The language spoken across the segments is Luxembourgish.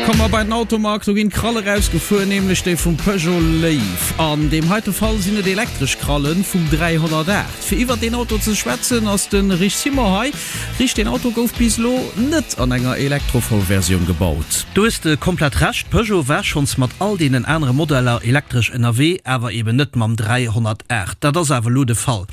Komme mer bei den Automag, do ginn d'Kralle rausgefuer, nämlech déi vum Peugeot Léiw. An deem heite Fall sinn et elektresch Kralle vum 308. Fir iwwert deen Auto ze schwätzen ass de Rich Simon hei. Rich, deen Auto gouf bis elo net an enger Elektrovollversioun gebaut. Do hues de komplett Recht, Peugeot war schonns mat all deenen anere Modeller elektresch ënnerwee, awer eben net mam 308. Dat ass awer elo de Fall.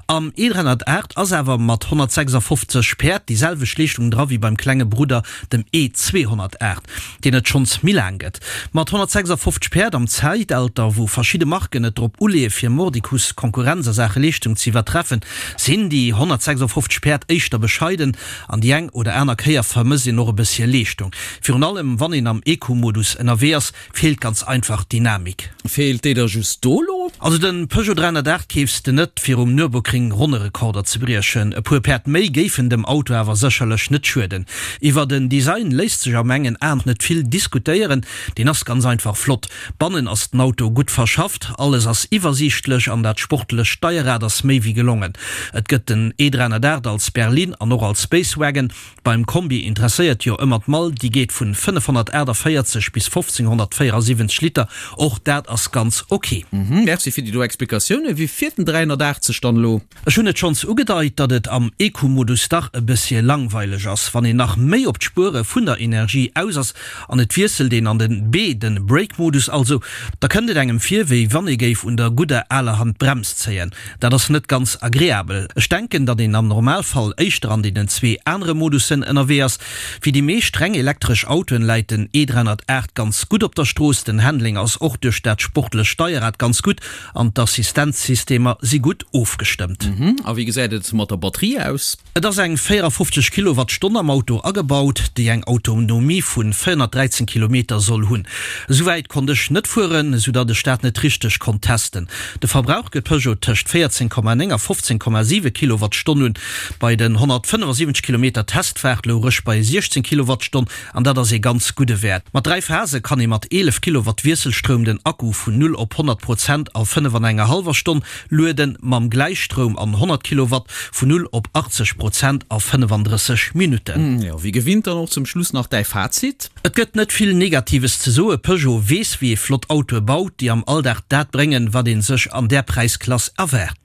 Am E308 ass awer mat 156 Päerd déi selwecht Leeschtung dra wéi beim klenge Brudder, dem E 208, deen et schonns méi laang gëtt. Mat 156 Päerd am Zäitalter, wou verschidde Marken et drop uleeë fir mordicus Konkurrenz a Saache Leeschtung ze iwwertreffen, sinn déi 156 Päerd éischter bescheiden an déi eng oder aner Kéier vermësst een och e bëssche Leeschtung. Virun allem wann een am Eco-Modus ënnerwee ass, Feelt ganz einfach d'Dynamik. Feelt déi der just do lo? Also den Peugeot 308 keefs de net fir um Nürburgring Ronnerekorder ze briechen. E puer Päerd méi géifen dem Auto awer sécherlech net schueden. Iwwer den Design léisst sech a mengen Aen net vill diskutéieren, deen ass ganz einfach flott. Bannen ass den Auto gutt verschafft, alles ass iwwersiichtlech an dat sportlecht Steierrad ass méi wéi gelongen. Et gëtt den E 308 als Berline an och als Space Wagon. Beim Kombi interesséiert jo ëmmer d'Mall, déi geet vun 548 bis 1574 Liter, och dat ass ganz ok. Merci fir déi do Explikatiounen. Wéi fiert den 380 dann elo? Ech hunn et schonns ugedeit, datt et am Eco-Modus dach e bëssche langweileg ass. Wann een nach méi op d'Spuere vun der Energie aus ass an et wiesselt een an den B, den Brake-Modus also, da kënnt et engem vir, wéi wann ee géif un der gudder aler Hand d'Brems zéien. Dat ass net ganz agreabel. Ech denken, datt een am Normalfall éischter an deenen zwee anere Modussen ënnerwee ass. Wéi déi meescht reng elektresch Autoen läit den E 308 ganz gutt op der Strooss. Den Handling ass och duerch dat sportlecht Steierrad ganz gutt an d'Assistenzsystemer si gutt ofgestëmmt. A wéi gesäit et mat der Batterie aus? Et ass eng 54 Kilowattstonn am Auto agebaut, déi eng Autonomie vu 413 Kilometer soll hunn. Esou wäit konnt ech net fueren, esou datt ech dat net richteg konnt testen. De Verbrauch gëtt Peugeot tëscht 14,9 a 15,7 Kilowattstonn un. Bei den 175 Kilometer Testfaart louch ech bei 16 Kilowattstonn an dat ass ee ganz gudde Wäert. Mat 3 Phase kann ee mat 11 Kilowatt Wiesselstroum den Akku vun 0 op 100 Prozent a 5 an enger hallwer Stonn lueden, mam Gläichstroum an 100 Kilowatt vun 0 op 80 Prozent a 35 Minutten. Jo, wéi gewinnt dann och zum Schluss nach däi Fazit. Et gëtt net vill Negatives ze soe, Peugeot weess wéi ee flott Autoe baut, déi am Alldag dat bréngen, wat ee sech an där Präisklass erwaart.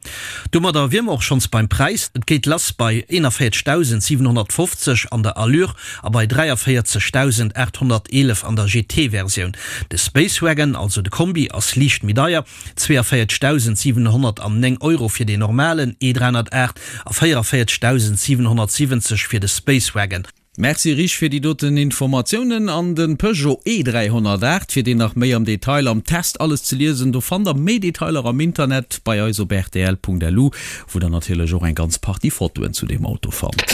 Domadder wier mer och schonns beim Präis, et geet lass bei 41.750 an der Allure a bei 43.811 an der GT-Versioun. De Space Wagon, also de Kombi, ass liicht méi deier, 42.709 Euro fir deen normalen E308 a 44.770 fir de Space Wagon. Merci Rich fir déi doten Informatiounen. An de Peugeot E308, fir deen nach méi am Detail am Test alles ze liesen, do fannt der méi Detailer am Internet bei eis op rtl.lu, wou der natierlech och eng ganz Partie Fotoen zu deem Auto fannt.